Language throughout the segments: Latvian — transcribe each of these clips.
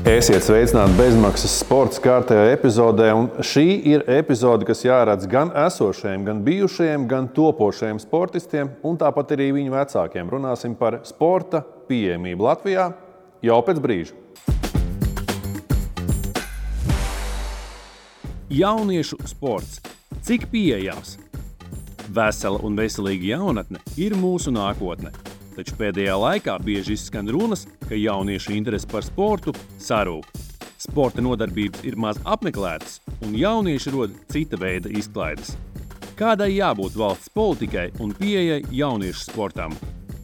Esiet sveicināti bezmaksas sporta kārtējā epizodē, un šī ir epizode, kas jāredz gan esošajiem, gan bijušajiem, gan topošajiem sportistiem, un tāpat arī viņu vecākiem. Runāsim par sporta pieejamību Latvijā jau pēc brīža. Jauniešu sports. Cik pieejams? Vesela un veselīga jaunatne ir mūsu nākotne. Taču pēdējā laikā bieži izskan runas, ka jauniešu interese par sportu sarūk. Sporta nodarbības ir maz apmeklētas, un jaunieši rod cita veida izklaides. Kādai jābūt valsts politikai un pieejai jauniešu sportam?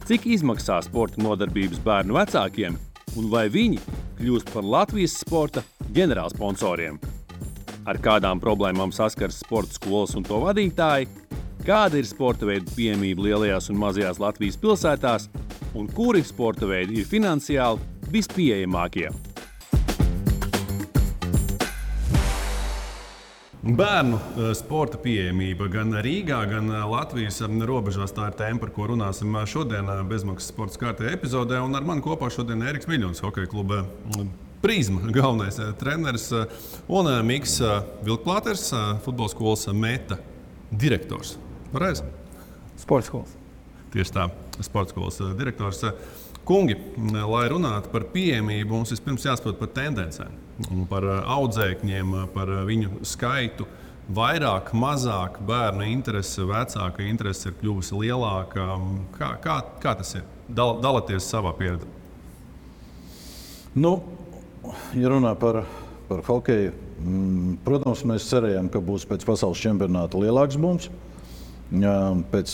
Cik izmaksā sporta nodarbības bērnu vecākiem, un vai viņi kļūst par Latvijas sporta ģenerālsponsoriem? Ar kādām problēmām saskars sporta skolas un to vadītāji? Kāda ir sporta veidu pieejamība lielajās un mazajās Latvijas pilsētās, un kuri sporta veidi ir finansiāli vispieejamākie? Bērnu sporta pieejamība gan Rīgā, gan Latvijas robežās. Tā ir tēma, par ko runāsim šodien bezmaksas sporta kārtējā epizodē. Un ar mani kopā šodien Ēriks Miļņons, hokeja kluba Prizma galvenais treneris, un Miks Vilkplāters, futbola skolas Meta direktors. Pareizi? Sporta skolas. Tieši tā, sporta skolas direktors. Kungi, lai runātu par pieejamību, mums vispirms jāsaprot par tendencēm, par audzēkņiem, par viņu skaitu. Vairāk, mazāk bērnu interese, vecāka interese ir kļuvusi lielāka. Kā tas ir? Dalieties savā pieredzē. Ja runā par hokeju, protams, mēs cerējām, ka būs pēc pasaules čempionāta lielāks bums. Pēc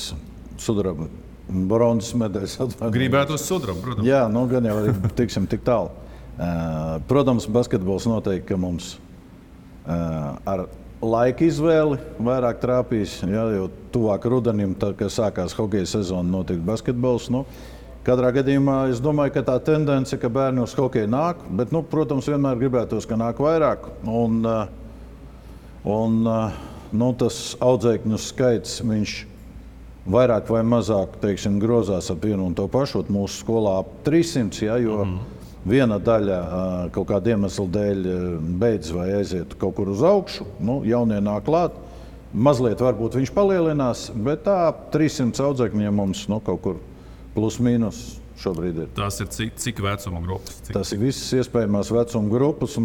sudraba bronzas medaļas. Gribētos sudrabu, protams. Jā, gan jau arī tiksim tik tālu. Protams, basketbols noteikti, ka mums ar laika izvēli vairāk trāpīs, jo tuvāk rudenim, tad, kad sākās hokeja sezona, notiek basketbols. Katrā gadījumā es domāju, ka tā tendence, ka bērni uz hokeju nāk, bet, protams, vienmēr gribētos, ka nāk vairāk. Tas audzēkņu skaits, viņš vairāk vai mazāk, grozās ap vienu un to pašu. Mūsu skolā ap 300, jo viena daļa kaut kāda iemesla dēļ beidz vai aiziet kaut kur uz augšu. Jaunie nāk klāt. Mazliet varbūt viņš palielinās, bet tā 300 audzēkņiem mums kaut kur plus mīnus šobrīd ir. Tas ir cik vecuma grupas? Tas ir visas iespējamās vecuma grupas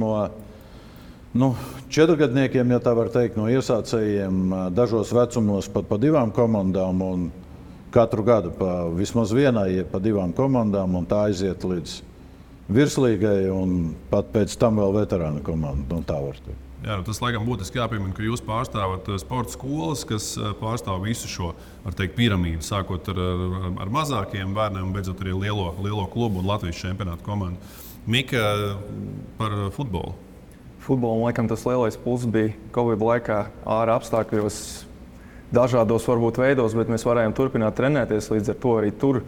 no 4-gadniekiem, ja tā var teikt, no iesācējiem, dažos vecumos pat pa 2 komandām un katru gadu pa vismaz vienai, pa 2 komandām, un tā aiziet līdz virslīgai un pat pēc tam vēl veterāna komanda. Tā var teikt. Jā, tas laikam būtiski jāpiemina, ka jūs pārstāvat sporta skolas, kas pārstāv visu šo piramīdu, sākot ar mazākiem bērniem un beidzot arī lielo klubu un Latvijas čempionātu komandu. Mika, par futbolu. Futbolam laikam tas lielais pluss bija Covid laikā ārā apstākļos, dažādos varbūt veidos, bet mēs varējām turpināt trenēties. Līdz ar to arī tur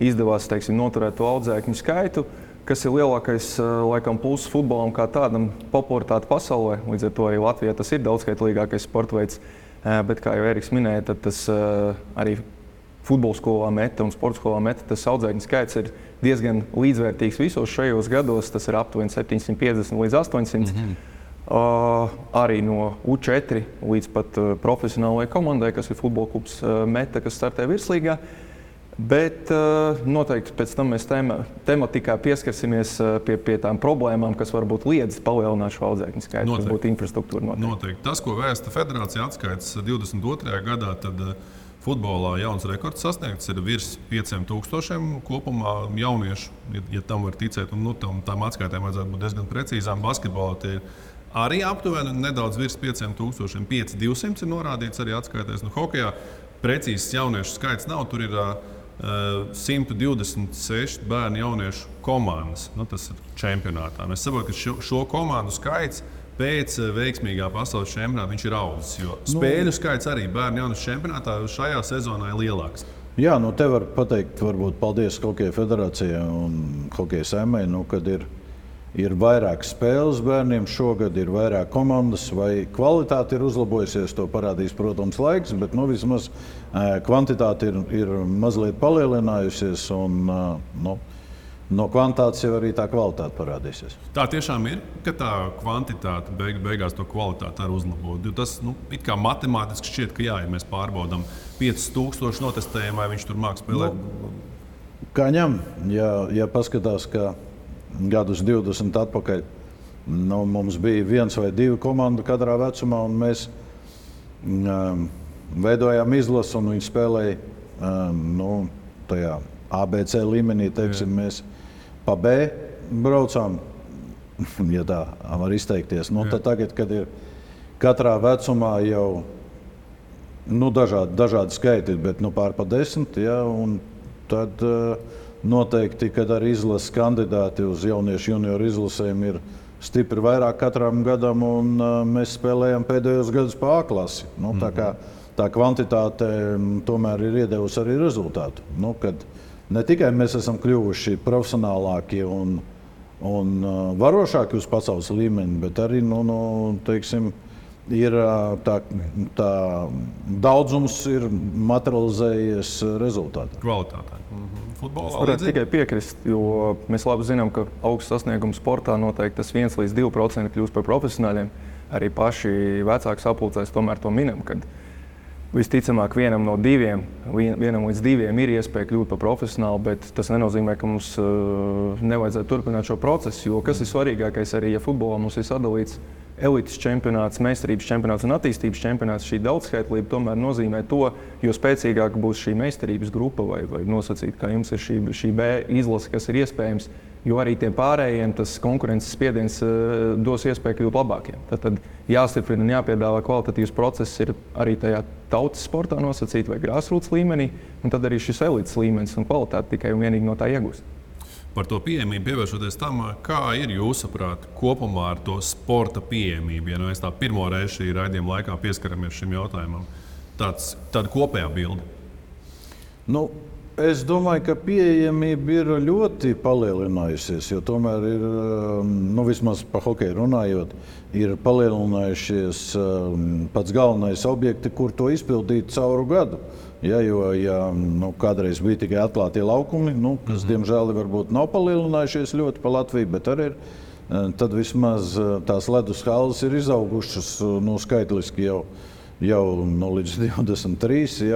izdevās noturēt to audzēkņu skaitu, kas ir lielākais laikam pluss futbolam kā tādam popularitāte pasaulē. Līdz ar to arī Latvijā tas ir daudzskaitlīgākais sporta veids. Bet, kā jau Ēriks minēja, tad tas arī futbola skolā Meta un sporta skolā Meta, tas audzēkņu skaits ir diezgan līdzvērtīgs visos šajos gados. Tas ir aptuveni 750 līdz 800. Arī no U4 līdz pat profesionālajai komandai, kas ir futbola klubs Meta, kas startē virslīgā. Bet noteikti pēc tam mēs tematikā pieskarsimies pie tām problēmām, kas varbūt liedz palielināt šo audzēkņu skaitu, kas būtu infrastruktūra. Noteikti. Tas, ko vēsta federācija atskaits 22. gadā, tad futbolā jauns rekords sasniegts ir virs 5000 kopumā jauniešu, ja tam var ticēt. Un, tām atskaitēm vajadzētu būt diezgan precīzām. Basketbolā tie ir arī aptuveni nedaudz virs 5000, 5200 ir norādīts arī atskaitēs. Hokejā precīzs jauniešu skaits nav, tur ir 126 bērnu jauniešu komandas. Tas ir čempionātā. Es saprotu, ka šo komandu skaits pēc veiksmīgā pasaules čempionāta viņš ir audzis. Jo spēļu skaits arī bērnu jauniešu čempionātā šajā sezonā ir lielāks. Jā, te var pateikt, varbūt paldies Hokeja federācijai un Hokeja saimai, kad ir vairāk spēles bērniem šogad, ir vairāk komandas, vai kvalitāte ir uzlabojusies, to parādīs, protams, laiks, bet vismaz kvantitāte ir mazliet palielinājusies. no kvantitātes jau arī tā kvalitāte parādīsies. Tā tiešām ir, ka tā kvantitāte beigās to kvalitāti arī uzlabo. Tas it kā matemātiski šķiet, ka jā, ja mēs pārbaudām 5000 notestējumu, vai viņš tur māks spēlēt. Kā ņem, ja paskatās, ka gadus 20 atpakaļ mums bija 1 vai 2 komandu katrā vecumā, un mēs veidojām izlasi, un viņi spēlēja tajā ABC līmenī, teiksim, mēs pa B braucām, ja tā var izteikties. Tad tagad, kad ir katrā vecumā jau dažādi skaiti, bet pār pa 10, un tad noteikti, kad arī izlases kandidāti uz jauniešu junioru izlasēm ir stipri vairāk katram gadam, un mēs spēlējam pēdējos gadus pa A klasi. Tā kā tā kvantitāte tomēr ir iedevusi arī rezultātu. Kad ne tikai mēs esam kļuvuši profesionālāki un varošāki uz pasaules līmeni, bet arī teiksim, ir tā daudzums ir materializējies rezultātā. Kvalitātē. Es varētu tikai piekrist, jo mēs labi zinām, ka augsts sasniegums sportā noteikti tas 1 līdz 2% kļūst par profesionāļiem. Arī paši vecāki sapulcēs tomēr to minam, kad visticamāk vienam līdz 2 ir iespēja kļūt par profesionālu, bet tas nenozīmē, ka mums nevajadzētu turpināt šo procesu, jo kas ir svarīgākais arī, ja futbolā mums ir sadalīts elites čempionāts, meistarības čempionāts un attīstības čempionāts, šī daudzskaitlība tomēr nozīmē to, jo spēcīgāka būs šī meistarības grupa vai nosacīt, kā jums ir šī B izlase, kas ir iespējams, jo arī tiem pārējiem tas konkurences spiediens dos iespēju kļūt labākiem. Tad jāstiprina un jāpiedāvā kvalitatīvs process ir arī tajā tautas sportā nosacīt vai grassroots līmenī, un tad arī šis elites līmenis un kvalitāte tikai un vienīgi no tā iegūst. Par to pieejamību pievēršoties tam, kā ir jūsuprāt kopumā ar to sporta pieejamību, ja mēs tā pirmo reizi šī raidījuma laikā pieskaramies šim jautājumam, tāda kopējā bilde? Es domāju, ka pieejamība ir ļoti palielinājusies, jo tomēr ir, vismaz par hokeju runājot, ir palielinājušies pats galvenais objekti, kur to izpildīt cauru gadu. Jo kādreiz bija tikai atklātie laukumi, kas diemžēl varbūt nav palielinājušies ļoti pa Latviju, bet arī ir. Tad vismaz tās ledus halles ir izaugušas skaitliski jau līdz 23.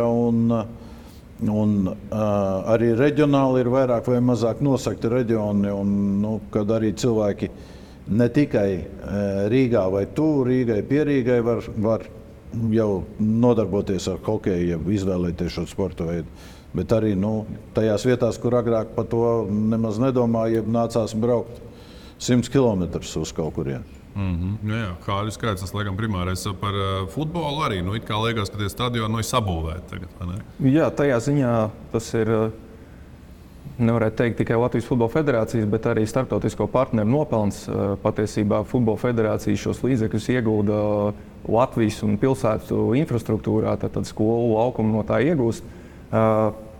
Un arī reģionāli ir vairāk vai mazāk nosakti reģioni, un kad arī cilvēki ne tikai Rīgā vai tuvu Rīgai, pie Rīgai var jau nodarboties ar hokeju, izvēlēties šo sporta veidu. Bet arī tajās vietās, kur agrāk par to nemaz nedomāja, nācās braukt 100 km uz kaut kurien. Jā, Hāļu skaits, tas laikam primārais par futbolu arī. It kā liekas, ka tie stadioni ir sabūvēti tagad, vai ne? Jā, tajā ziņā tas ir, nevarētu teikt tikai Latvijas Futbola Federācijas, bet arī starptautisko partneru nopelns. Patiesībā Futbola Federācija šos līdzekļus iegulda Latvijas un pilsētu infrastruktūrā, tad skolu laukumu no tā iegūst.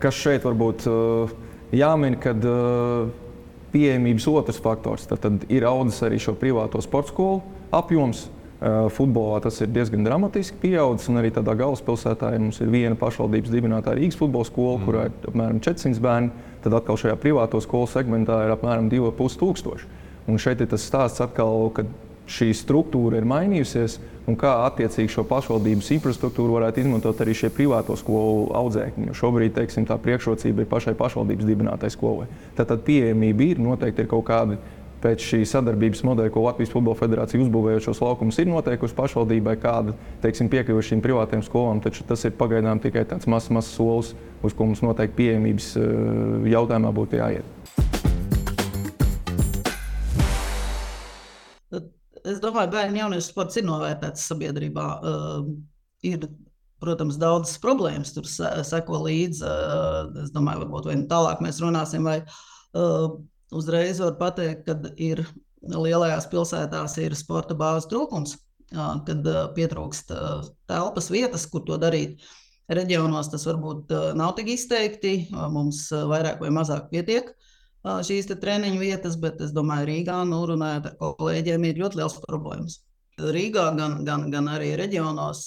Kas šeit varbūt jāmin, kad pieejamības otrs faktors, tad ir audzis arī šo privāto sporta skolu apjoms. Futbolā tas ir diezgan dramatiski pieaudzis, un arī tādā galvaspilsētā mums ir viena pašvaldības dibinātā Rīgas futbola skola, kurā ir apmēram 400 bērni. Tad atkal šajā privāto skolu segmentā ir apmēram 2500. Un šeit ir tas stāsts atkal, ka šī struktūra ir mainījusies, un kā attiecīgi šo pašvaldības infrastruktūru varētu izmantot arī šie privāto skolu audzēkņi. Jo šobrīd, teiksim, tā priekšrocība ir pašai pašvaldības dibinātai skolai. Tad pieejamība ir, noteikti ir kaut kādi pēc šī sadarbības modeļa, ko Latvijas Futbola Federācija uzbūvējot šos laukumus, ir noteikusi pašvaldībai kāda, teiksim, piekļuve šīm privātiem skolām, taču tas ir pagaidām tikai tāds mazs solis, uz ko mums noteikti pieejamības jautājumā būtu jāiet. Es domāju, bērnu jauniešu sports ir novērtēts sabiedrībā. Ir, protams, daudzas problēmas, tur seko līdzi. Es domāju, varbūt vai tālāk mēs runāsim, vai uzreiz var pateikt, kad ir lielajās pilsētās ir sporta bāzes trūkums, kad pietrūkst telpas vietas, kur to darīt. Reģionos tas varbūt nav tik izteikti, mums vairāk vai mazāk pietiek šīs treniņu vietas, bet es domāju, Rīgā, runājot ar kolēģiem, ir ļoti liels problēmas. Rīgā gan arī reģionos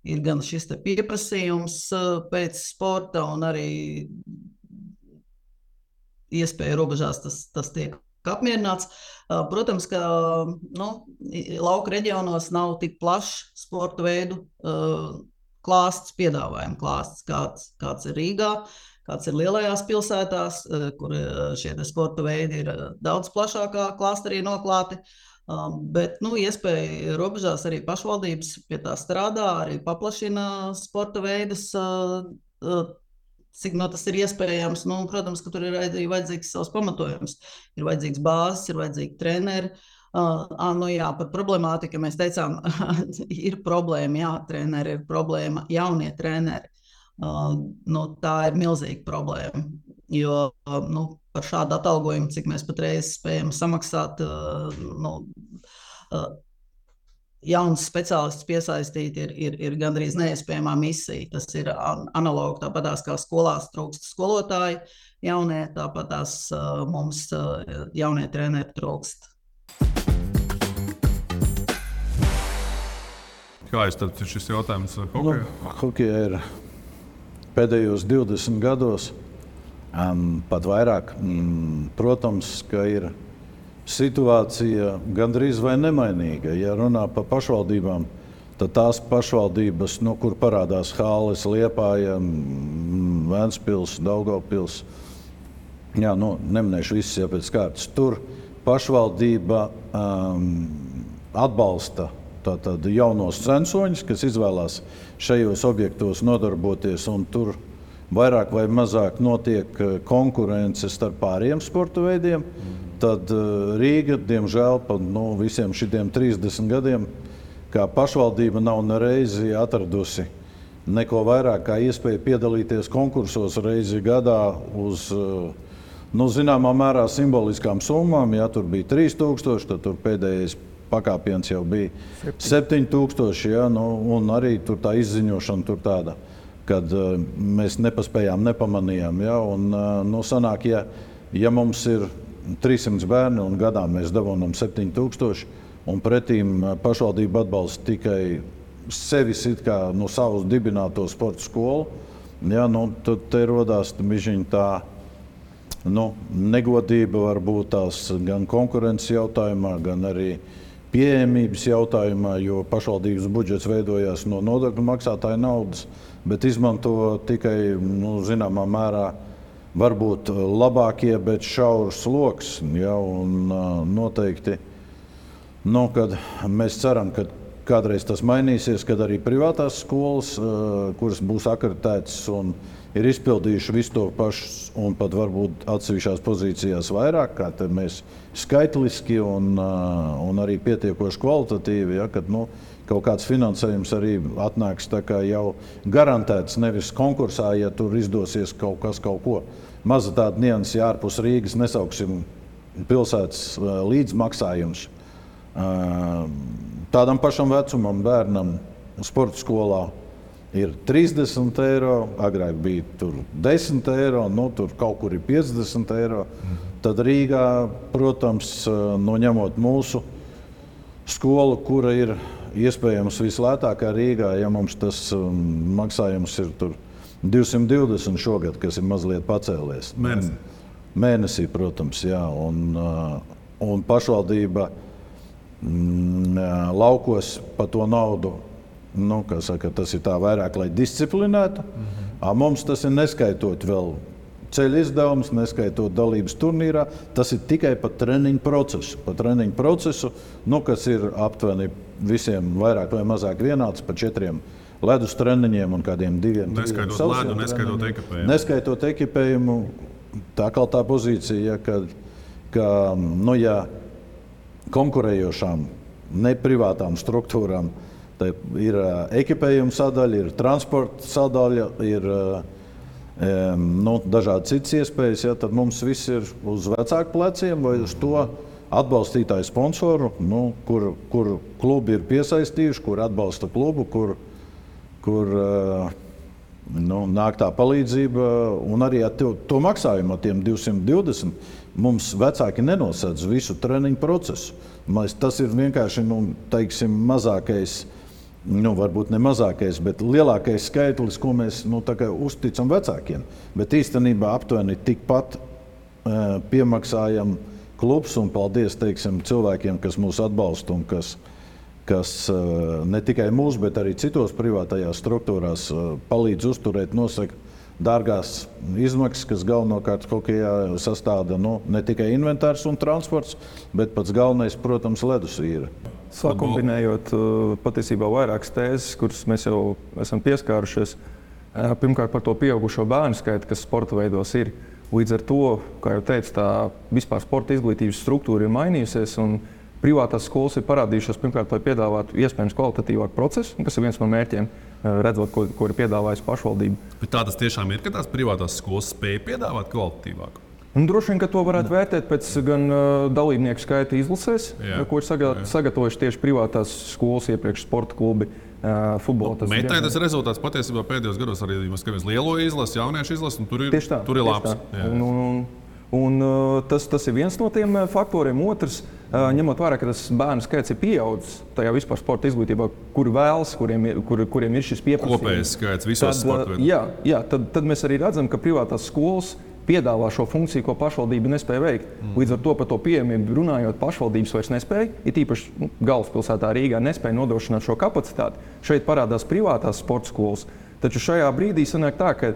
ir gan šis pieprasījums pēc sporta un arī iespēju robežās tas tiek apmierināts. Protams, ka lauka reģionos nav tik plašs sporta veidu klāsts, piedāvājuma klāsts, kāds ir Rīgā, kāds ir lielajās pilsētās, kur šie sporta veidi ir daudz plašākā klāsterī noklāti. Bet iespēja robežās arī pašvaldības pie tā strādā, arī paplašina sporta veidus, cik tas ir iespējams. Protams, ka tur ir arī vajadzīgs savs pamatojums. Ir vajadzīgs bāzes, ir vajadzīgi treneri. Par problemātiku mēs teicām, ir problēma, jā, treneri ir problēma, jaunie treneri. Tā ir milzīga problēma, jo par šādu atalgojumu, cik mēs patreiz spējam samaksāt, jauns speciālists piesaistīt ir gandrīz neiespējamā misija. Tas ir analogi tāpatās kā skolās trūkst skolotāji jaunie, tāpatās mums jaunie treneri trūkst. Kā ir šis jautājums hokejā? Hokejā ir pēdējos 20 gados, pat vairāk. Protams, ka ir situācija gandrīz vai nemainīga. Ja runā par pašvaldībām, tad tās pašvaldības, kur parādās Halles, Liepāja, Ventspils, Daugavpils, neminēšu visas jau pēc kārtas, tur pašvaldība atbalsta tātad jaunos censoņus, kas izvēlās šajos objektos nodarboties, un tur vairāk vai mazāk notiek konkurence starp pāriem sporta veidiem. Tad Rīga, diemžēl, pa visiem šitiem 30 gadiem, kā pašvaldība nav nereizi atradusi neko vairāk kā iespēju piedalīties konkursos reizi gadā uz, zināmā mērā simboliskām summām. Ja tur bija 3000, tad tur pēdējais pakāpiens jau bija 7000, ja, un arī tur tā izziņošana tur tāda, kad mēs nepaspējām, nepamanījām. Ja, un sanāk, ja mums ir 300 bērni un gadā mēs dabūnam 7000, un pretīm pašvaldība atbalsta tikai sevis it kā savus dibināto sporta skolu, ja, tad te rodās tā negodība varbūt tās gan konkurences jautājumā, gan arī pieejamības jautājumā, jo pašvaldības budžets veidojās no nodokļu maksātāju naudas, bet izmanto tikai, zināmā mērā, varbūt labākie, bet šaurs sloks. Ja, un noteikti, kad mēs ceram, ka kādreiz tas mainīsies, kad arī privātās skolas, kuras būs akreditētas un ir izpildījuši visu to pašu un pat varbūt atsevišķās pozīcijās vairāk, kā mēs skaitliski un arī pietiekoši kvalitatīvi, ja, kad kaut kāds finansējums arī atnāks tā kā jau garantēts, nevis konkursā, ja tur izdosies kaut ko. Maza tāda nianse, ja ārpus Rīgas nesauksim pilsētas līdzmaksājums. Tādam pašam vecumam bērnam sporta skolā ir 30 eiro, agrāk bija tur 10 eiro, tur kaut kur ir 50 eiro. Tad Rīgā, protams, ņemot mūsu skolu, kura ir iespējams vislētākā Rīgā, ja mums tas maksājums ir tur 220 šogad, kas ir mazliet pacēlies. Mēnesī, protams, jā. Un pašvaldība laukos pa to naudu, tas ir tā vairāk, lai disciplinētu. Mums tas ir neskaitot vēl ceļu izdevumus, neskaitot dalības turnīrā. Tas ir tikai par treniņu procesu. Kas ir aptuveni visiem vairāk vai mazāk vienāds par 4 ledus treniņiem un kādiem 2. Neskaitot ledu, neskaitot ekipējumu. Neskaitot ekipējumu, tā pozīcija, ka ja konkurējošām, ne privātām struktūrām, ir ekipējuma sadaļa, ir transporta sadaļa, ir dažādi citas iespējas, ja, tad mums viss ir uz vecāku pleciem vai uz to atbalstītāju sponsoru, kur klubi ir piesaistījuši, kur atbalsta klubu, kur nāk tā palīdzība, un arī ar to maksājumu ar tiem 220 mums vecāki nenosedz visu treniņu procesu. Tas ir vienkārši, teiksim, mazākais, varbūt ne mazākais, bet lielākais skaitlis, ko mēs uzticam vecākiem. Bet īstenībā aptuveni tikpat piemaksājam klubs un paldies cilvēkiem, kas mūs atbalsta un kas ne tikai mūs, bet arī citos privātajās struktūrās palīdz uzturēt, nosaka dārgās izmaksas, kas galvenokārt hokejā sastāda ne tikai inventārs un transports, bet pats galvenais, protams, ledusvīra. Sakombinējot patiesībā vairākas tēzes, kuras mēs jau esam pieskārušies. Pirmkārt par to pieaugušo bērnu skaitu, kas sporta veidos ir. Līdz ar to, kā jau teicu, tā vispār sporta izglītības struktūra ir mainījusies. Privātās skolas ir parādījušās pirmkārt, lai piedāvātu iespējams kvalitatīvāku procesu, kas ir viens no mērķiem, redzot, ko ir piedāvājusi pašvaldība. Bet tā tas tiešām ir, ka tās privātās skolas spēj piedāvāt kvalitatīvāku? Droši vien, ka to varētu vērtēt pēc gan dalībnieku skaita izlasēs, ko ir sagatavojuši tieši privātās skolas, iepriekš sporta klubi, futbola. Metai tas rezultāts patiesībā pēdējos gados arī skatāmies lielo izlasi, jauniešu izlasi, un tur ir labs. Tas ir viens no tiem faktoriem. Otrs, ņemot vērā, ka tas bērnu skaits ir pieaudzis tajā vispār sporta izglītībā, kuri vēlas, kuriem ir šis pieprasījums. Kopējais skaits visos sporta veidos. Jā, tad mēs arī redzam, ka privātās skolas piedāvā šo funkciju, ko pašvaldība nespēja veikt. Līdz ar to par to pieejamību runājot, pašvaldības vairs nespēja, it īpaši galvaspilsētā Rīgā nespēja nodrošināt šo kapacitāti. Šeit parādās privātās sporta skolas, taču šajā brīdī sanāk tā, ka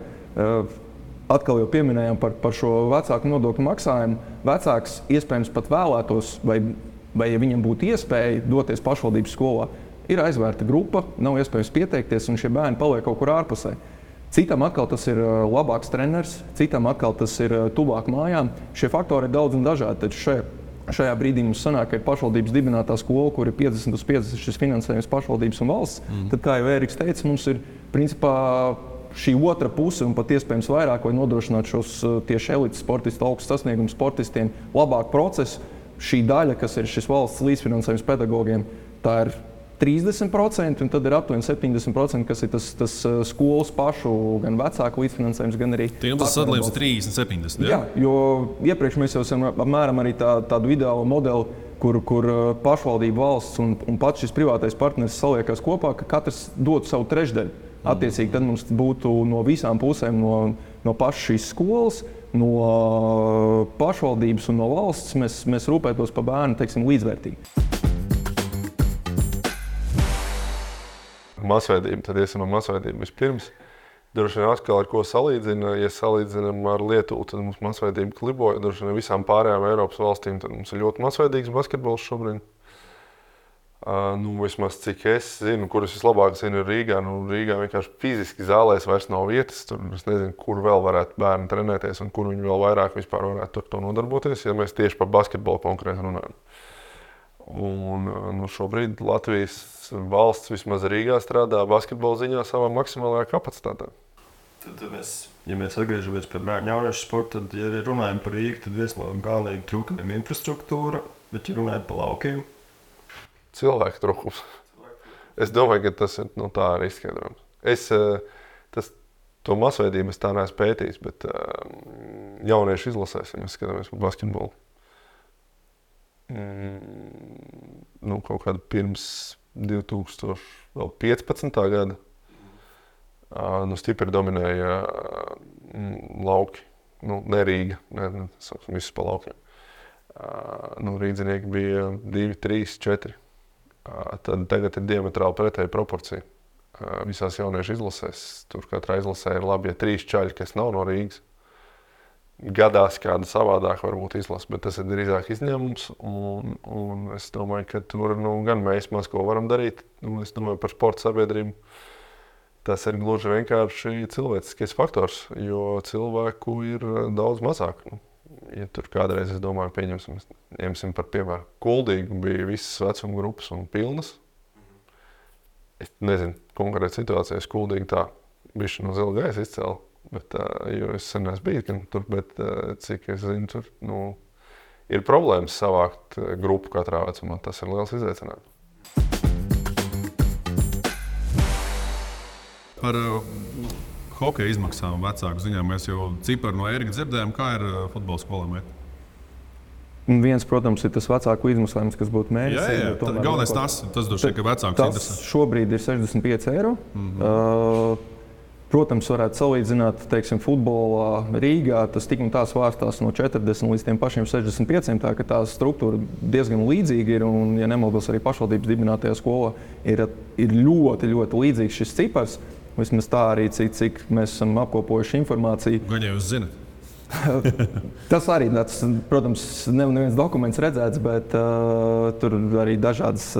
atkal jau pieminējām par šo vecāku nodokļu maksājumu. Vecāks iespējams pat vēlētos, vai ja viņam būtu iespēja doties pašvaldības skolā, ir aizvērta grupa, nav iespējams pieteikties, un šie bērni paliek kaut kur ārpusē. Citam atkal tas ir labāks treneris, citam atkal tas ir tuvāk mājām. Šie faktori ir daudz un dažādi, taču šajā brīdī mums sanāk, ka ir pašvaldības dibinātā skola, kur ir 50/50 šis finansējums pašvaldības un valsts. Tad, kā jau Ēriks teica, mums ir principā šī otra puse un pat iespējams vairāk, lai nodrošinātu šos tieši elites sportistu, augstu sasniegumu sportistiem labāku procesu. Šī daļa, kas ir šis valsts līdzfinansējums pedagogiem, tā ir 30%, un tad ir aptuveni 70%, kas ir tas skolas pašu, gan vecāku līdzfinansējums, gan arī... Tiem tas sadalījums ir 30-70, jā? Jā, jo iepriekš mēs jau esam apmēram arī tādu ideālu modeli, kur pašvaldība, valsts un pats šis privātais partneris saliekās kopā, ka katrs dod savu trešdaļu. Attiecīgi, tad mums būtu no visām pusēm, no pašas šīs skolas, no pašvaldības un no valsts, mēs rūpētos par bērnu, līdzvērtīgi. Masveidība, tad iesim no masveidību vispirms. Droši vien atkal ar ko salīdzina. Ja salīdzinām ar Lietuvu, tad mums masveidība kliboja. Droši vien visām pārējām Eiropas valstīm tad mums ir ļoti masveidīgs basketbols šobrīd. Vismaz cik es zinu, kurus vislabāk zinu ir Rīgā. Rīgā vienkārši fiziski zālēs vairs nav vietas. Tur es nezinu, kur vēl varētu bērni trenēties un kur viņi vēl vairāk vispār varētu ar to nodarboties, ja mēs tieši par basketbolu konkrēti runājam. Šobrīd Latvijas valsts vismaz Rīgā strādā basketbola ziņā savā maksimālajā kapacitātē. Tad ja mēs atgriežamies pie bērnu jauniešu sporta, tad, ja runājam par Rīgu, tad viens no galvenajiem trūkumiem infrastruktūra, bet ja runājam par laukiem? Cilvēku trūkums. Es domāju, ka tas ir tā arī izskaidrojums. To masveidību es tā neesmu pētījis, bet jauniešu izlasēs, ja mēs skatāmies par basketbolu. Kaut kādu pirms 2015. gada stipri dominēja lauki, ne Rīga, visus pa laukiem. Rīdzinieki bija 2, 3, 4. Tagad ir diametrāli pretēja proporcija. Visās jauniešu izlasēs, tur katrā izlasē ir labi, ja 3 čaļi, kas nav no Rīgas. Gadās kāda savādāk varbūt izlasa, bet tas ir drīzāk izņēmums. Un es domāju, ka tur gan mēs maz ko varam darīt. Es domāju par sporta sabiedrību. Tas ir gluži vienkārši cilvēciskais faktors, jo cilvēku ir daudz mazāk. Ja tur kādreiz, es domāju, ņemsim par piemēru, Kuldīgu bija visas vecuma grupas un pilnas. Es nezinu, konkrēti situācijas Kuldīgi tā bišķi no zila gaisa izcēla. Jo es sen esmu bijis tur, bet cik es zinu, tur ir problēmas savākt grupu katrā vecumā. Tas ir liels izaicinājums. Par hokeja izmaksām vecāku ziņā mēs jau ciparu no Ērika dzirdējām, kā ir futbola skolām iet. Viens, protams, ir tas vecāku izmaksājums, kas būtu mēnesī. Jā, galvenais tas droši vien, ka vecākus interesē. Tas šobrīd ir 65 eiro. Protams, varētu salīdzināt, teiksim, futbolā Rīgā. Tas tik un tā svārstās no 40 līdz tiem pašiem 65. Tā ka tā struktūra diezgan līdzīga ir. Un, ja nemaldos, arī pašvaldības dibinātajā skolā ir ļoti, ļoti līdzīgs šis cipars. Vismaz tā arī, cik mēs esam apkopojuši informāciju. Gan jau jūs zināt. Tas arī, protams, neviens dokuments redzēts, bet tur arī dažādas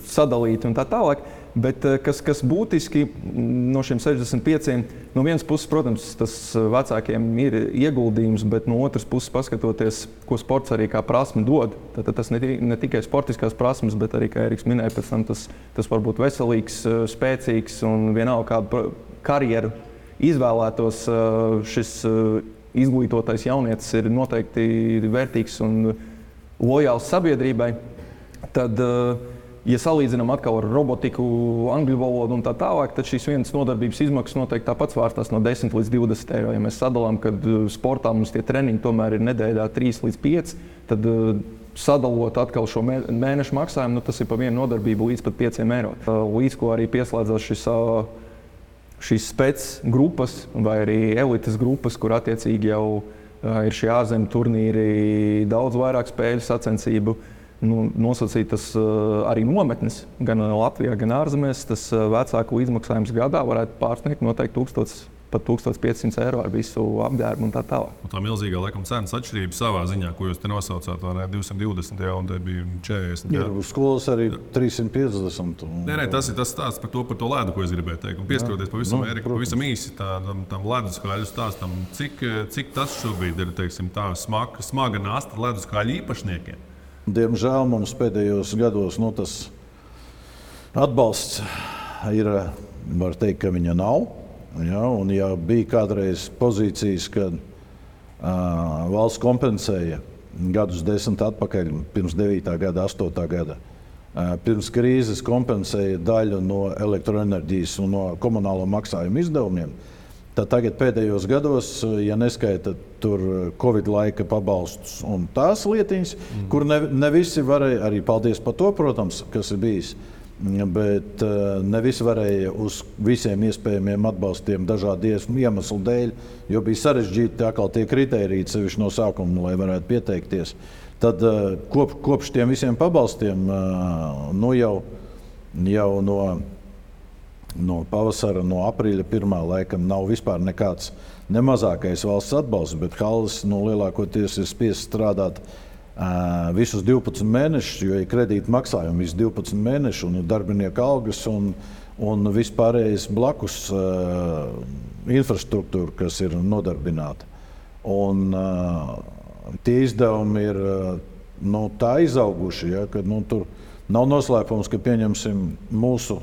sadalīti un tā tālāk. Bet kas būtiski no šiem 65, no vienas puses, protams, tas vecākiem ir ieguldījums, bet no otras puses, paskatoties, ko sports arī kā prasme dod, tad tas ne tikai sportiskās prasmes, bet arī, kā Eriks minēja, pēc tam tas var būt veselīgs, spēcīgs un vienalga kādu karjeru izvēlētos, šis izglītotais jaunietis ir noteikti vērtīgs un lojāls sabiedrībai. Tad, ja salīdzinām atkal ar robotiku, angļu valodu un tā tālāk, tad šīs vienas nodarbības izmaksas noteikti tāpat svārstās no 10 līdz 20 eiro. Ja mēs sadalām, kad sportā mums tie treniņi tomēr ir nedēļā 3 līdz 5, tad sadalot atkal šo mēnešu maksājumu, tas ir pa vienu nodarbību līdz pat 5 eiro. Līdz ko arī pieslēdzās šīs spec grupas vai arī elites grupas, kur attiecīgi jau ir šie ārzemju turnīri, daudz vairāk spēļu sacensību. Nosacītas arī nometnes gan Latvijā, gan ārzemēs. Tas vecāku līdzmaksājums gadā varētu pārsniegt noteikti 1000, pat 1500 eiro ar visu apģērbu un tā tālāk. Un tā milzīgā laikam cenas atšķirība savā ziņā, ko jūs te nosaucāt, vai ne, 220 jau, un te bija 40. Ir uz skolas arī 350. Nē, tas ir tas stāsts par to ledu, ko es gribēju teikt. Un pieskaroties pavisam īsi tam leduskāļu stāstam, cik tas šobrīd ir, teiksim, tā smaga nasta leduskāļu īpašniekiem. Diemžēl mums pēdējos gados tas atbalsts ir, var teikt, ka viņa nav. Ja, un ja bija kādreiz pozīcijas, kad valsts kompensēja gadus 10 atpakaļ, pirms 9. gada, 8. gada, pirms krīzes kompensēja daļu no elektroenerģijas un no komunālo maksājumu izdevumiem, tad tagad pēdējos gados, ja neskaita tur Covid laika pabalstus un tās lietiņas, kur ne visi varēja, arī paldies par to, protams, kas ir bijis, bet ne visi varēja uz visiem iespējamiem atbalstiem dažādu iemeslu dēļ, jo bija sarežģīti atkal tie kritēriji, sevišķi no sākuma, lai varētu pieteikties. Tad kopš tiem visiem pabalstiem jau no pavasara, no aprīļa 1. laikam nav vispār nekāds nemazākais valsts atbalsts, bet halles lielākoties ir spiests strādāt visus 12 mēnešus, jo ir kredīta maksājumi visus 12 mēnešus, un ir darbinieku algas un vispārējais blakus infrastruktūra, kas ir nodarbināta. Un tie izdevumi ir tā izauguši, ja, ka tur nav noslēpums, ka pieņemsim mūsu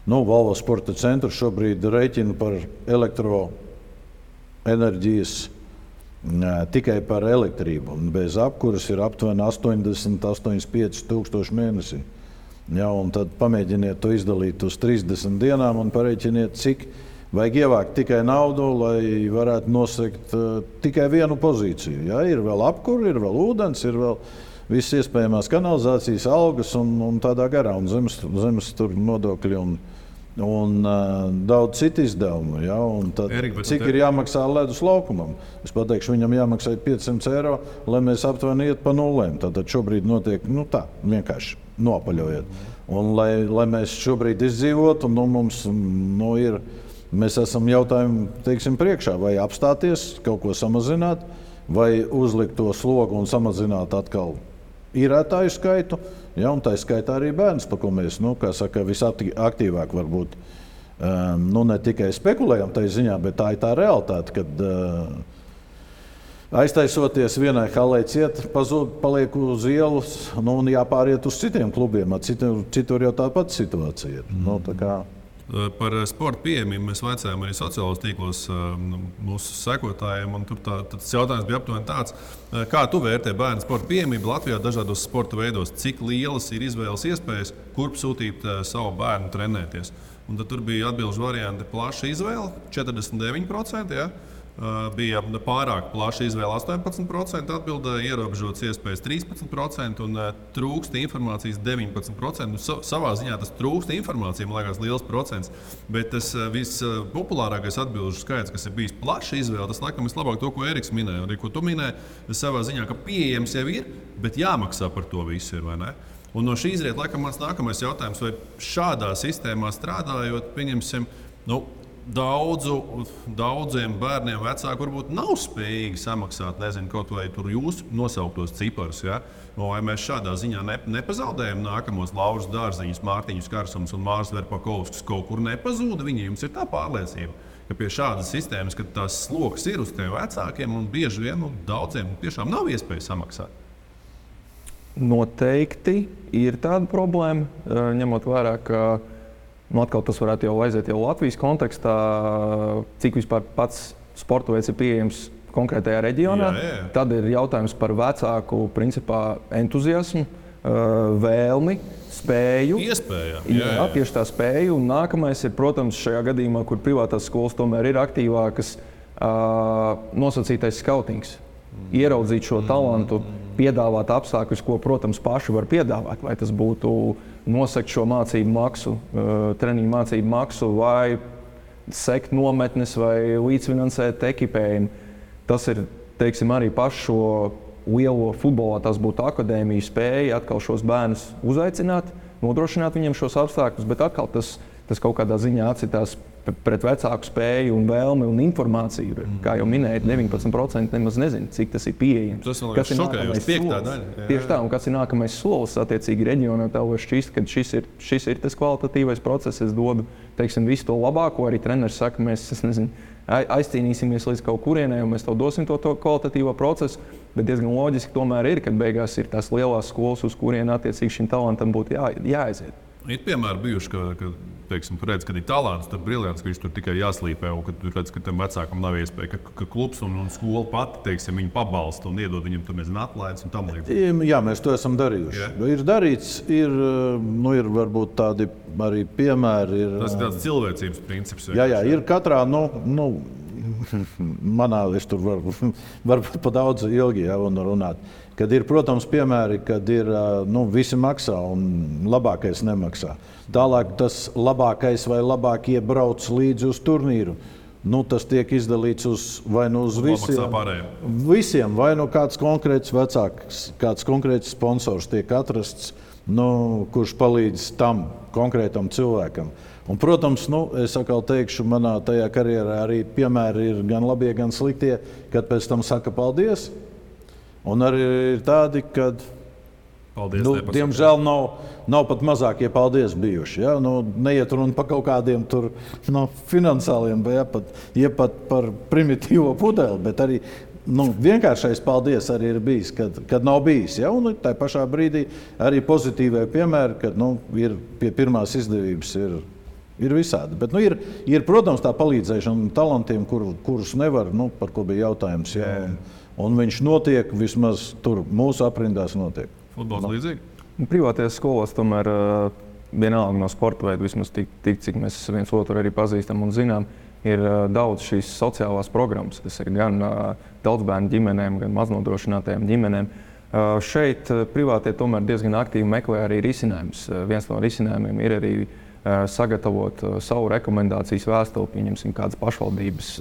Volvo sporta centru šobrīd rēķina par elektroenerģijas tikai par elektrību. Bez apkuras ir aptuveni 80–85 tūkstoši mēnesī. Ja, un tad pamēģiniet to izdalīt uz 30 dienām un parēķiniet, cik vajag ievākt tikai naudu, lai varētu nosegt tikai vienu pozīciju. Ja, ir vēl apkura, ir vēl ūdens, ir vēl visas iespējamās kanalizācijas, algas un tādā garā, un zemes tur nodokļi un daudz citu izdevumu. Ja, cik ir jāmaksā ledus laukumam? Es pateikšu, viņam jāmaksā 500 eiro, lai mēs aptuveni iet pa nulēm. Tātad šobrīd notiek tā, vienkārši nopaļojiet. Un lai mēs šobrīd izdzīvotu, mēs esam jautājumu, teiksim, priekšā, vai apstāties, kaut ko samazināt, vai uzlikt to slogu un samazināt atkal īrētāju skaitu, ja, un tā skaitā arī bērns, par ko mēs, visaktīvāk varbūt, ne tikai spekulējam tai ziņā, bet tā ir tā realitāte, kad aiztaisoties vienai halei ciet, paliek uz ielas, un jāpāriet uz citiem klubiem, citur jau tāpat situācija ir. Par sporta pieejamību mēs vaicājām arī sociālos tīklos mūsu sekotājiem. Tas jautājums bija aptuveni tāds, kā tu vērtē bērnu sporta pieejamību Latvijā dažādos sporta veidos? Cik lielas ir izvēles iespējas, kurp sūtīt savu bērnu trenēties? Un tad tur bija atbilžu varianti plaša izvēle, 49%, ja? bija pārāk plaša izvēle 18%, atbildēja ierobežotas iespējas 13% un trūksta informācijas 19%. Savā ziņā tas trūksta informācija, man liekas, liels procents. Bet tas vispopulārākais atbilžu skaits, kas ir bijis plaša izvēle, tas laikam vislabāk to, ko Eriks minēja. Arī ko tu minēji, savā ziņā, ka pieejams jau ir, bet jāmaksā par to visu ir, vai ne? Un no šī izriet, laikam, mans nākamais jautājums, vai šādā sistēmā strādājot, pieņemsim, daudziem bērniem vecāki varbūt nav spējīgi samaksāt, nezinu, kaut vai tur jūsu nosauktos ciparus. Ja? Vai mēs šādā ziņā nepazaudējam nākamos Lauras Dārziņus, Mārtiņus Karsumus un Mārs Verpakovskis kaut kur nepazūda? Viņiem ir tā pārliecība, ka pie šādas sistēmas, kad tās sloks ir uz tiem vecākiem un bieži vien daudziem tiešām nav iespēja samaksāt. Noteikti ir tāda problēma, ņemot vērā, ka atkal tas varētu jau aiziet jau Latvijas kontekstā, cik vispār pats sporta veids ir pieejams konkrētajā reģionā. Jā. Tad ir jautājums par vecāku principā entuziasmu, vēlmi, spēju. Jā, tieši tā spēju. Un nākamais ir, protams, šajā gadījumā, kur privātās skolas tomēr ir aktīvākas, nosacītais skautings. Ieraudzīt šo talantu, piedāvāt apstākļus, ko, protams, paši var piedāvāt. Vai tas būtu nosakt šo mācību maksu, treniņu mācību maksu, vai sekt nometnes, vai līdzfinansēt ekipējumu. Tas ir, teiksim, arī pašu šo lielo futbolā, tas būtu akadēmija spēja atkal šos bērnus uzaicināt, nodrošināt viņiem šos apstākļus, bet atkal tas kaut kādā ziņā atcitās pret vecāku spēju un vēlmi un informāciju. Kā jau minēju, 19% nemaz nezinu, cik tas ir pieejams. Tas man liekas šokējoši, piektā daļa. Tieši tā, un kas ir nākamais solis attiecīgi reģionā, tev var šķist, ka šis ir tas kvalitatīvais process. Es dodu, teiksim, visu to labāko. Arī treneris saka, mēs, aizcīnīsimies līdz kaut kurienei, un mēs tev dosim to kvalitatīvo procesu. Bet diezgan loģiski tomēr ir, kad beigās ir tās lielās skolas, uz kurien attiecīgi šim talantam būtu jāaiziet. Ir piemēri bijuši, ka teiksim, tu redz, kad ir talants, tad briljants, ka viņš tur tikai jāslīpē, un kad tu redz, ka tam vecākam nav iespēja, ka klubs un skola pati, teiksim, viņu pabalsta un iedod viņam atlaides un tam līdzīgi. Jā, mēs to esam darījuši. Jā. Ir darīts, ir varbūt tādi arī piemēri. Tas ir tāds cilvēcības princips. Jā, ir katrā, manā, es tur varbūt pa daudz ilgi runāt. Kad ir, protams, piemēri, kad ir visi maksā un labākais nemaksā. Tālāk tas labākais vai labākie brauc līdzi uz turnīru. Tas tiek izdalīts uz visiem, vai kāds konkrēts vecāks, kāds konkrēts sponsors tiek atrasts, kurš palīdz tam konkrētam cilvēkam. Un, protams, es atkal teikšu, manā tajā karjerā arī piemēri ir gan labie, gan sliktie, kad pēc tam saka paldies. Un arī ir tādi, kad diemžēl nav pat mazākie paldies bijuši. Ja? Neiet runa par kaut kādiem tur, finansāliem vai pat par primitīvo pudeli, bet arī vienkāršais paldies arī ir bijis, kad nav bijis. Ja? Un tā pašā brīdī arī pozitīvai piemēri, kad ir pie pirmās izdevības ir visādi. Bet ir, protams, tā palīdzēšana talantiem, kurus nevar, par ko bija jautājums. Ja? Un viņš notiek, vismaz tur mūsu aprindās notiek. Futbols līdzīgi? Privātajās skolās tomēr vienalga no sporta veida, vismaz tik, cik mēs viens otru arī pazīstam un zinām, ir daudz šīs sociālās programmas. Tas ir gan daudzbērnu ģimenēm, gan maznodrošinātajām ģimenēm. Šeit privātie tomēr diezgan aktīvi meklē arī risinājumus. Viens no risinājumiem ir arī sagatavot savu rekomendācijas vēstuli, pieņemsim kādas pašvaldības,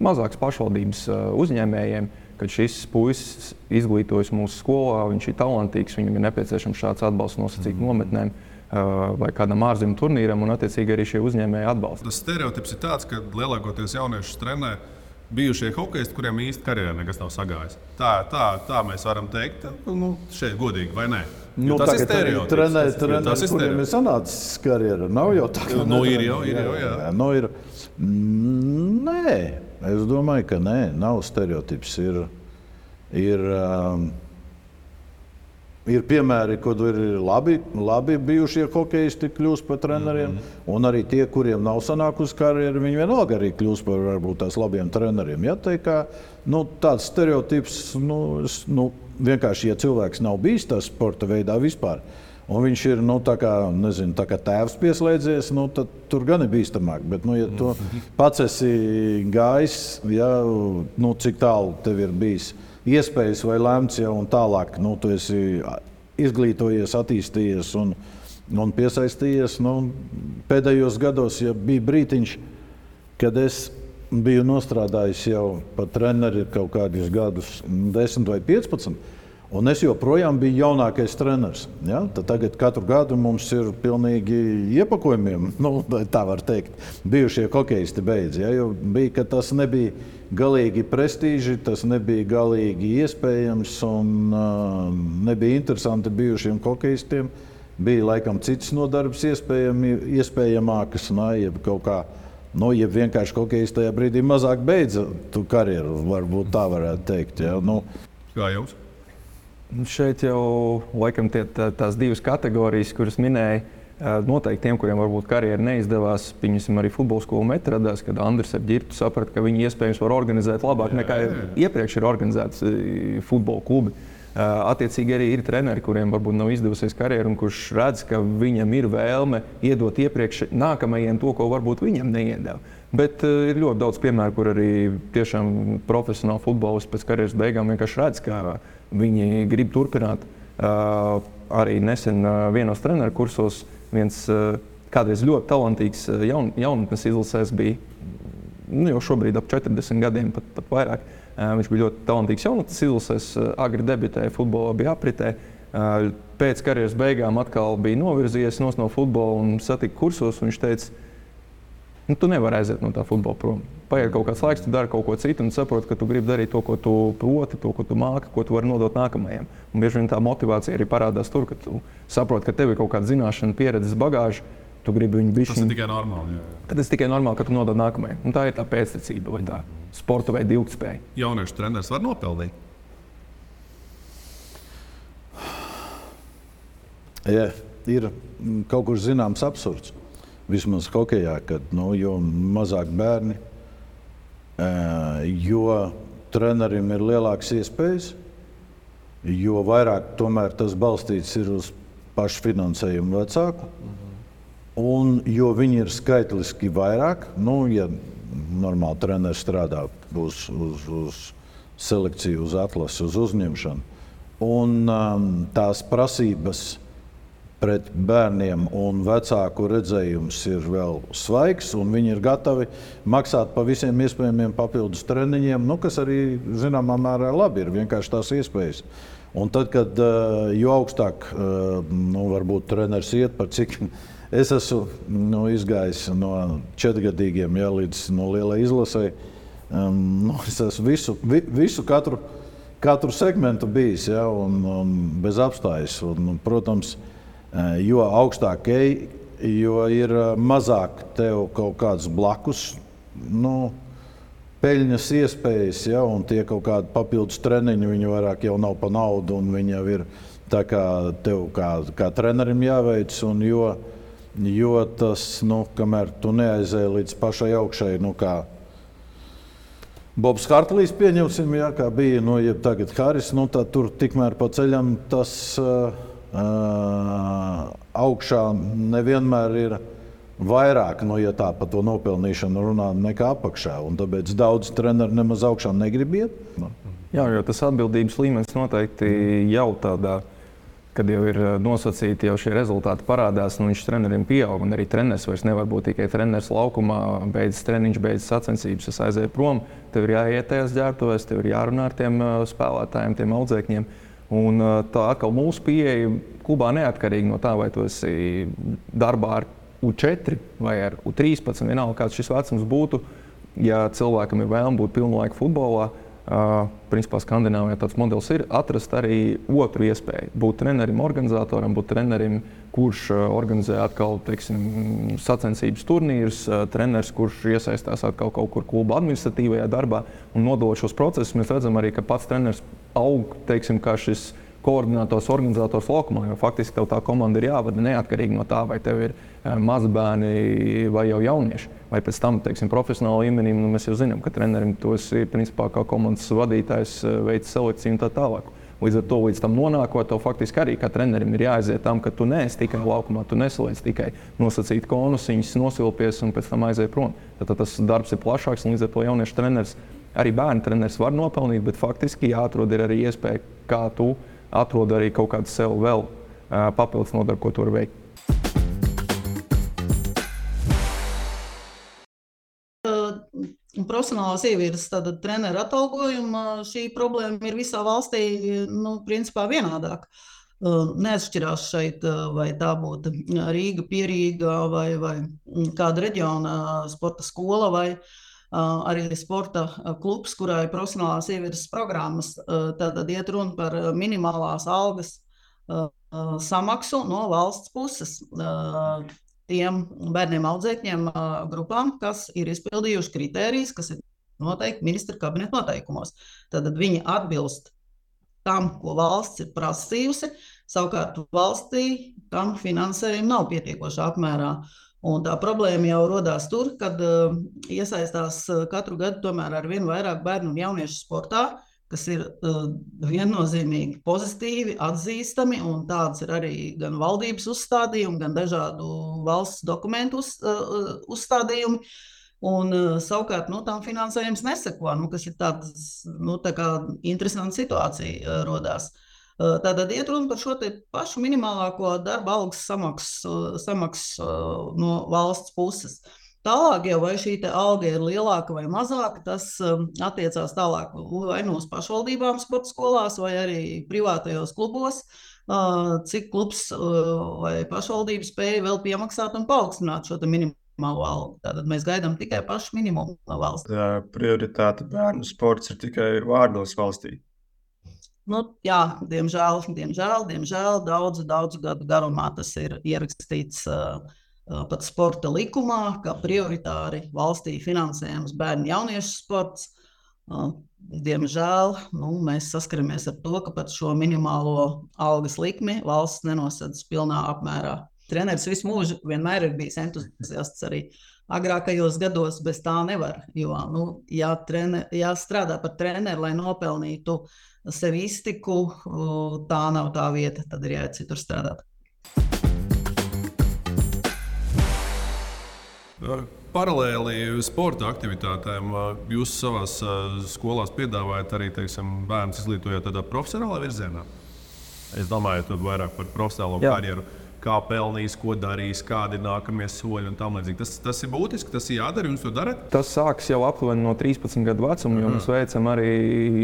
mazākas pašvaldības uzņēmējiem, kad šis puisis izglītojas mūsu skolā, viņš ir talantīgs, viņam ir nepieciešams šāds atbalsts nosacīt nometnēm vai kādam ārzemju turnīram, un attiecīgi arī šie uzņēmēji atbalsta. Tas stereotips ir tāds, ka lielākoties jauniešus trenē bijušie hokeisti, kuriem īsti karjerā nekas nav sagājis. Tā mēs varam teikt, šeit godīgi, vai ne? Tas ir stereotips. Trenēri, kuriem ir sanācis karjera, nav jau tā. Ir jau. Nē, es domāju, ka nē, nav stereotips. Ir piemēri, kad ir labi bijušie hokeisti kļūst par treneriem, un arī tie, kuriem nav sanākusi karjera, viņi vienalga arī kļūst par varbūt tās labiem treneriem. Ja, tāds stereotips, vienkārši, ja cilvēks nav bijis tā sporta veidā vispār, un viņš ir tā kā tēvs pieslēdzies, tad tur gan ir bīstamāk. Bet, ja tu pats esi gājis, cik tālu tev ir bijis iespējas vai lemts jau un tālāk, tu esi izglītojies, attīstījies un piesaistījies. Pēdējos gados, ja bija brītiņš, kad es biju nostrādājis jau par treneri kaut kādus gadus, 10 vai 15, un es joprojām biju jaunākais treneris. Ja? Tagad katru gadu mums ir pilnīgi iepakojumiem, tā var teikt, bijušie hokejisti beidz. Ja? Jo bija, ka tas nebija galīgi prestīži, tas nebija galīgi iespējams un nebija interesanti bijušiem hokejistiem. Bija laikam citas nodarbes iespējamākas, jeb kaut kā, jeb vienkārši hokejisti tajā brīdī mazāk beidza tu karjeru, varbūt tā varētu teikt. Ja? Kā jums? Šeit jau laikam tās divas kategorijas, kuras minēja, noteikti tiem, kuriem varbūt karjera neizdevās, piemēram, arī futbola skolu meta radās, kad Andris ar Ģirtu saprata, ka viņi iespējams var organizēt labāk nekā iepriekš ir organizēts futbola klubi. Attiecīgi arī ir treneri, kuriem varbūt nav izdevusies karjeru un kurš redz, ka viņam ir vēlme iedot iepriekš nākamajiem to, ko varbūt viņam neiedeva. Bet ir ļoti daudz piemēru, kur arī tiešām profesionāli futbolisti pēc karjeras beigām vienkārši redz, ka viņi grib turpināt. Arī nesen vienos treneru kursos viens kādreiz ļoti talantīgs jaunatnes izlasēs bija, jau šobrīd ap 40 gadiem, pat vairāk. Viņš bija ļoti talantīgs jaunatnes izlasēs, agri debitēja futbolā, bija apritē. Pēc karjeras beigām atkal bija novirzījies no futbola un satika kursos. Viņš teica, tu nevari aiziet no tā futbola prom. Paiet kaut kāds laiks, tu dari kaut ko citu un saproti, ka tu gribi darīt to, ko tu proti, to, ko tu māki, ko tu vari nodot nākamajiem. Un bieži vien tā motivācija arī parādās tur, ka tu saproti, ka tev ir kaut kāda zināšana, pieredzes bagāža. Tu gribi viņu bišķiņu. Tas ir tikai normāli. Jā. Tad tas tikai normāli, ka tu nodod nākamajam. Un tā ir tā pēctecība vai tā sporta vai ilgtspēja. Jauniešu treneris var nopelnīt? Jā, ir kaut kur zināms absurds. Vismaz hokejā, kad jo mazāk bērni, jo trenerim ir lielākas iespējas, jo vairāk tomēr tas balstīts ir uz pašfinansējumu vecāku. Un jo viņi ir skaitliski vairāk, ja normāli treneris strādā uz selekciju, uz atlasi, uz uzņemšanu. Un tās prasības pret bērniem un vecāku redzējums ir vēl svaigs, un viņi ir gatavi maksāt pa visiem iespējamiem papildus treniņiem, kas arī zināmā mērā labi ir, vienkārši tās iespējas. Un tad, kad jo augstāk varbūt treneris iet, par cik es esmu izgājis no 4-gadīgiem līdz lielai izlasei. Es esmu visu katru segmentu bijis, un bez apstājas. Un, protams, jo augstāk ej, jo ir mazāk tev kaut kāds blakus peļņas iespējas, un tie kaut kādi papildus treniņi, viņi vairāk jau nav pa naudu, un viņi jau ir tā kā tev kā trenerim jāveic, un jo tas, kamēr tu neaizēji līdz pašai augšai, kā Bobs Hartlīs pieņemsim, kā bija, jeb tagad Haris, tad tur tikmēr pa ceļam tas augšā nevienmēr ir vairāk, ja tā par to nopelnīšanu runā, nekā apakšā. Un tāpēc daudz treneri nemaz augšā negrib iet. Jā, jo tas atbildības līmenis noteikti jau tādā, kad jau ir nosacīti, jau šie rezultāti parādās, viņš treneriem pieaug, un arī treneris vairs nevar būt tikai treneris laukumā, beidzas treniņš, beidzas sacensības, es aizēju prom, tev ir jāiet tajās ģērbtuvēs, tev ir jārunā ar tiem spēlētājiem, tiem audzēkņiem. Un tā atkal mūsu pieeja klubā neatkarīgi no tā, vai tu esi darbā ar U4 vai ar U13, vienalga kāds šis vecums būtu, ja cilvēkam ir vēlme būt pilnu laiku futbolā, principā Skandināvijā tāds modelis ir atrast arī otru iespēju. Būt trenerim, organizatoram, būt trenerim, kurš organizē atkal, teiksim, sacensības turnīrus, treneris, kurš iesaistās atkal kaut kur kluba administratīvajā darbā un nodot šos procesus. Mēs redzam arī, ka pats treneris aug, teiksim, kā šis koordinators, organizators laukumā, jo faktiski tev tā komanda ir jāvada neatkarīgi no tā, vai tev ir mazi bērni vai jau jaunieši. Vai pēc tam, teiksim, profesionāla līmenī, mēs jau zinām, ka trenerim tos ir, principā, kā komandas vadītājs veic selekciju un tā tālāk. Līdz ar to, līdz tam nonākot, tev faktiski arī kā trenerim ir jāaiziet tam, ka tu neesi tikai laukumā, tu nesaliec tikai nosacīt konusiņus, nosilpies un pēc tam aiziet prom. Tad tas darbs ir plašāks, un līdz ar to jauniešu treneris, arī bērnu treneris var nopelnīt, bet faktiski jāatrod ir arī iespēja, kā tu atrod arī kaut kādu sev vēl papildus nodarbu, ko tu vari veikt. Profesionālās ievirzes treneru atalgojuma šī problēma ir visā valstī principā vienādāk. Neatšķirās šeit, vai tā būtu Rīga, Pierīga vai kāda reģiona sporta skola vai arī sporta klubs, kurā ir profesionālās ievirzes programmas. Tad iet runa par minimālās algas samaksu no valsts puses. Tiem bērniem audzēkņiem grupām, kas ir izpildījuši kritērijus, kas ir noteikti ministra kabineta noteikumos. Tad viņi atbilst tam, ko valsts ir prasījusi, savukārt valstī tam finansējumu nav pietiekošā apmērā. Un tā problēma jau rodās tur, kad iesaistās katru gadu tomēr ar vien vairāk bērnu un jauniešu sportā, kas ir viennozīmīgi pozitīvi, atzīstami, un tāds ir arī gan valdības uzstādījumi, gan dažādu valsts dokumentu uzstādījumi. Un savukārt tam finansējums neseko, kas ir tā kā interesanta situācija rodās. Tātad iet runa par šo te pašu minimālāko darba algas samaksu no valsts puses. Tālāk jau vai šī alga ir lielāka vai mazāka, tas attiecās tālāk vai no pašvaldībām sporta skolās vai arī privātajos klubos, cik klubs vai pašvaldība spēja vēl piemaksāt un paaugstināt šo minimālo algu. Tātad mēs gaidām tikai pašu minimumu no valsts. Prioritāte bērnu sports ir tikai vārdos valstī. Jā, diemžēl daudzu gadu garumā tas ir ierakstīts pat sporta likumā, kā prioritāri valstī finansējams bērnu jauniešu sports. Diemžēl mēs saskaramies ar to, ka pat šo minimālo algas likmi valsts nenosedz pilnā apmērā. Treneris visu mūžu vienmēr ir bijis entuziasts arī agrākajos gados, bez tā nevar. Jo, jāstrādā par treneru, lai nopelnītu sev iztiku, tā nav tā vieta, tad ir jāiet citur strādāt. Paralēli sporta aktivitātēm jūs savās skolās piedāvājat arī, bērnus izglītojot tādā profesionālā virzienā? Es domāju, tad vairāk par profesionālo karjeru. Kā pelnīs, ko darīs, kādi ir nākamie soļi un tam līdzīgi. Tas ir būtiski, tas ir jādara, jums to darat? Tas sāks jau aptuveni no 13 gadu vecuma, jo mēs veicam arī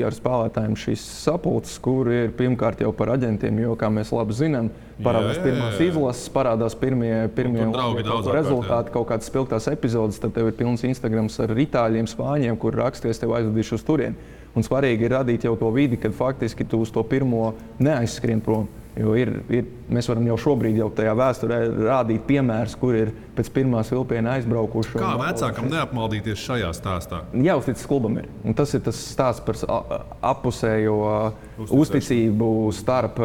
ar spēlētājiem šīs sapulces, kur ir pirmkārt jau par aģentiem, jo, kā mēs labi zinām, parādās pirmās izlases, parādās pirmie rezultāti, kaut kādas spilgtās epizodes, tad tev ir pilns Instagrams ar itāļiem, spāņiem, kur raksties tev aizvedīšu uz turieni. Un svarīgi ir radīt jau to vidi, kad faktiski tu uz to pirmo neaizskrien prom. Jo mēs varam jau šobrīd jau tajā vēsturē rādīt piemērus, kur ir pēc pirmās vilpiena aizbraukuši. Kā vecākam neapmaldīties šajā stāstā? Jāuzticas klubam ir. Un tas ir tas stāsts par appusējo uzticību starp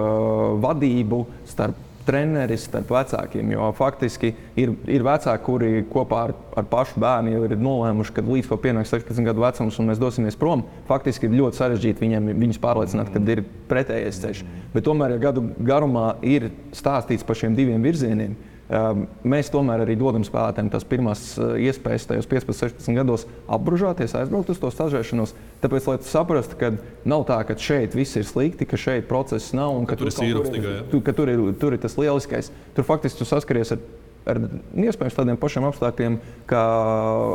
vadību, starp treneris, starp vecākiem. Jo faktiski ir vecāki, kuri kopā ar pašu bērnu jau ir nolēmuši, ka līdz ko pienāks 16 gadu vecums un mēs dosimies prom, faktiski ir ļoti sarežģīti viņus pārliecināt, kad ir pretējais ceļš. Bet tomēr, ja gadu garumā ir stāstīts par šiem diviem virzieniem, mēs tomēr arī dodam spēlētājiem tās pirmās iespējas tajos 15-16 gados apbružāties, aizbraukt uz to stažēšanos. Tāpēc, lai tu saprastu, ka nav tā, ka šeit viss ir slikti, ka šeit process nav un ka tur ir tas lieliskais. Tur faktiski tu saskaries ar iespējams tādiem pašiem apstākļiem, kā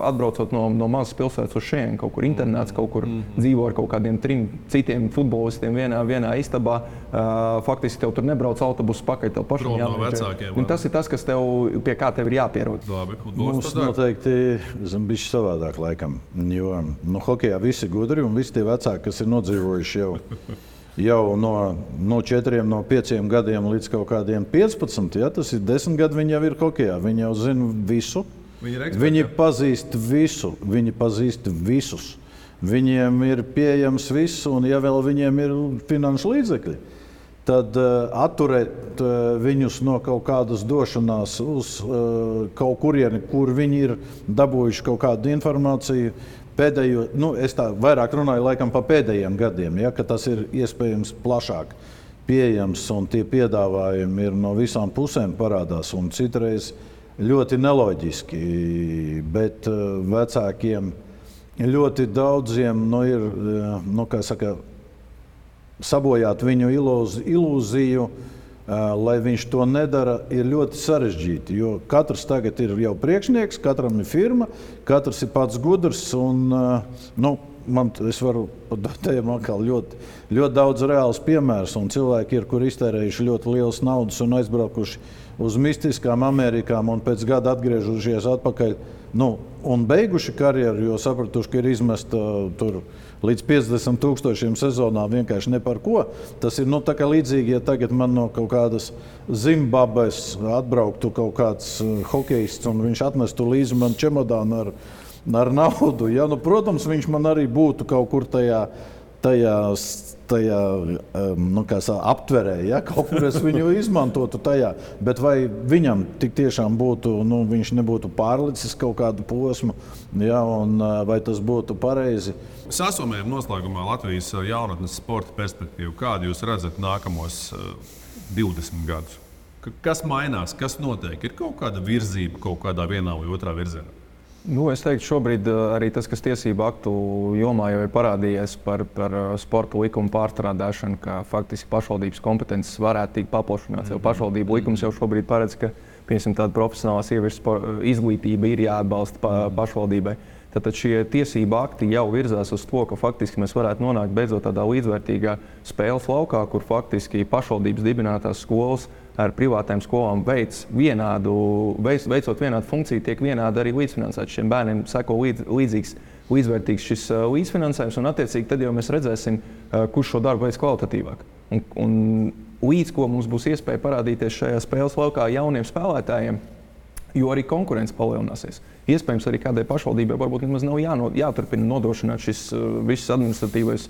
atbraucot no mazas pilsētas uz šeit, kaut kur internāts, kaut kur dzīvo ar kaut kādiem 3 citiem futbolistiem vienā istabā. Faktiski tev tur nebrauc autobusu pakaļ, tev pašam jāmēģina. Un tas ir tas, kas pie kā tev ir jāpierod. Mums noteikti bišķi savādāk laikam, jo hokejā visi gudri un visi tie vecāki, kas ir nodzīvojuši jau no 4, no 5 gadiem līdz kaut kādiem 15. Ja, tas ir 10 gadi, viņi jau ir hokejā. Viņi jau zina visu. Viņi pazīst visu. Viņi pazīst visus. Viņiem ir pieejams viss, un ja vēl viņiem ir finanšu līdzekļi, tad atturēt viņus no kaut kādas došanās uz kaut kurieni, kur viņi ir dabūjuši kaut kādu informāciju, pēdējo, es tā vairāk runāju laikam pa pēdējiem gadiem, ja, ka tas ir iespējams plašāk pieejams un tie piedāvājumi ir no visām pusēm parādās un citreiz ļoti neloģiski, bet vecākiem ļoti daudziem ir, kā saka, sabojāt viņu ilūziju, lai viņš to nedara, ir ļoti sarežģīti. Jo katrs tagad ir jau priekšnieks, katram ir firma, katrs ir pats gudrs. Un, es varu pateikt, ļoti, ļoti daudz reāls piemērs. Cilvēki ir, kur iztērējuši ļoti lielas naudas un aizbraukuši uz mistiskām Amerikām un pēc gada atgriežušies atpakaļ. Un beiguši karjeru, jo sapratuši, ka ir izmesta tur līdz 50,000 sezonā vienkārši ne par ko. Tas ir tā kā līdzīgi, ja tagad man no kaut kādas Zimbabves atbrauktu kaut kāds hokejists un viņš atmestu līdzi man čemodānu ar naudu. Ja? Protams, viņš man arī būtu kaut kur tajā aptverē, ja? Kaut kur es viņu izmantotu tajā. Bet vai viņam tik tiešām būtu, viņš nebūtu pārlicis kaut kādu posmu, ja? Un vai tas būtu pareizi? Sasumējam noslēgumā Latvijas jaunatnes sporta perspektīvu. Kādu jūs redzat nākamos 20 gadus? Kas mainās, kas notiek? Ir kaut kāda virzība kaut kādā vienā vai otrā virzienā? Es teiktu, šobrīd arī tas, kas tiesību aktu jomā jau ir parādījies par sporta likumu pārstrādāšanu, ka faktiski pašvaldības kompetences varētu tikt paplašināts. Jo pašvaldību likums jau šobrīd paredz, ka tāda profesionālā sieviešu izglītība ir jāatbalsta pašvaldībai. Tātad šie tiesību akti jau virzās uz to, ka faktiski mēs varētu nonākt beidzot tādā līdzvērtīgā spēles laukā, kur faktiski pašvaldības dibinātās skolas ar privātām skolām veicot vienādu funkciju, tiek vienādi arī līdzfinansēts. Šiem bērniem seko līdzvērtīgs šis līdzfinansējums, un attiecīgi tad jau mēs redzēsim, kurš šo darbu veids kvalitatīvāk. Un līdz ko mums būs iespēja parādīties šajā spēles laukā jauniem spēlētājiem, jo arī konkurence palielināsies. Iespējams, arī kādai pašvaldībai varbūt nemaz nav jāturpina nodrošināt šis viss administratīvais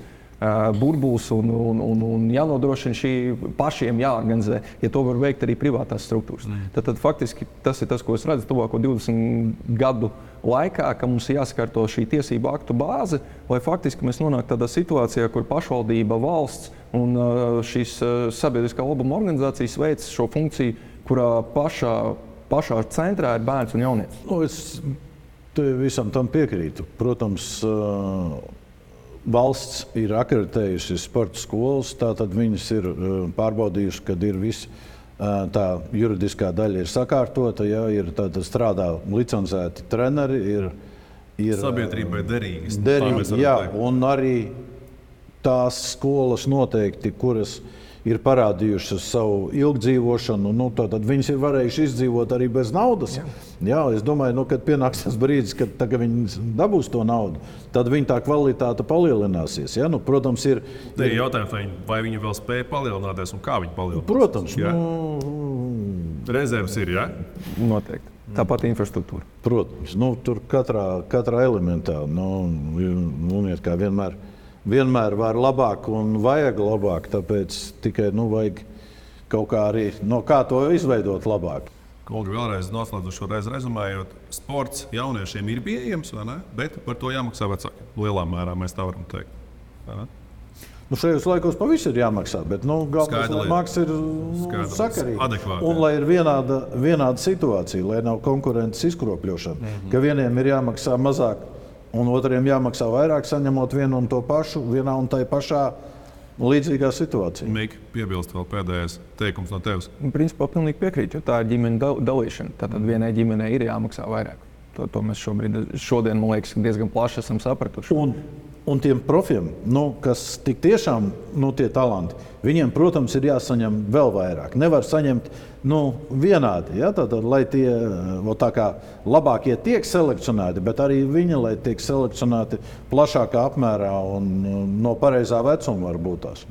burbulis un jānodrošina šī pašiem jāorganizē, ja to var veikt arī privātās struktūras. Tad faktiski tas ir tas, ko es redzu tuvāko 20 gadu laikā, ka mums ir jāsakārto šī tiesību aktu bāze, lai faktiski mēs nonāktu tādā situācijā, kur pašvaldība, valsts un šīs sabiedriskā labuma organizācijas veic šo funkciju, kurā pašā centrā ir bērns un jaunietis. Es visam tam piekrītu. Protams, valsts ir akreditējusi sporta skolas, tātad viņas ir pārbaudījusi, kad ir viss tā juridiskā daļa ir sakārtota, ja, ir strādā licencēti treneri, ir sabiedrībai derīgi. Jā, un arī tās skolas noteikti, kuras ir parādījušas savu ilgdzīvošanu, tad viņas ir varējuši izdzīvot arī bez naudas. Jā, es domāju, kad pienāks tas brīdis, kad viņi dabūs to naudu, tad viņa tā kvalitāte palielināsies. Ja? Protams, ir jautājums, vai viņi vēl spēja palielināties un kā viņi palielinās? Protams. Rezerves ir, jā? Noteikti. Tāpat infrastruktūra. Protams. Tur katrā elementā, kā vienmēr var labāk un vajag labāk, tāpēc tikai vajag kaut kā arī kā to izveidot labāk. Kolgi, vēlreiz noslēdzoši šo reizi rezumējot, sports jauniešiem ir pieejams, vai ne? Bet par to jāmaksā vecākiem. Lielā mērā mēs tā varam teikt. Šajos laikos pa visu ir jāmaksā, bet galvenais, lai maksa ir sakarīga. Un lai ir vienāda situācija, lai nav konkurences izkropļošana, ka vieniem ir jāmaksā mazāk un otriem jāmaksā vairāk, saņemot vienu un to pašu, vienā un tai pašā līdzīgā situācijā. Mika, piebilst vēl pēdējais teikums no tevis. Principā pilnīgi piekrītu, jo tā ir ģimeņa dalīšana. Tātad vienai ģimenei ir jāmaksā vairāk. To mēs šodien, man liekas, diezgan plaši esam sapratuši. Un tiem profiem, kas tik tiešām tie talanti, viņiem, protams, ir jāsaņem vēl vairāk. Nevar saņemt vienādi, ja? Tātad, lai tie tā kā labākie tiek selekcionēti, bet arī viņi, lai tiek selekcionēti plašākā apmērā un no pareizā vecuma varbūt tās.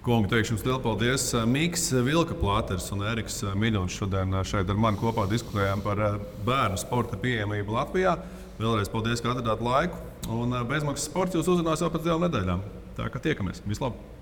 Kungi, teikšu jums lielu paldies. Miks Vilka-Plāters un Eriks Miļons šodien šeit ar mani kopā diskutējām par bērnu sporta pieejamību Latvijā. Vēlreiz paldies, ka atradāt laiku. Un bezmaksas sports jūs uzrunās jau pēc 2 nedēļām. Tā kā tiekamies. Vislabāk!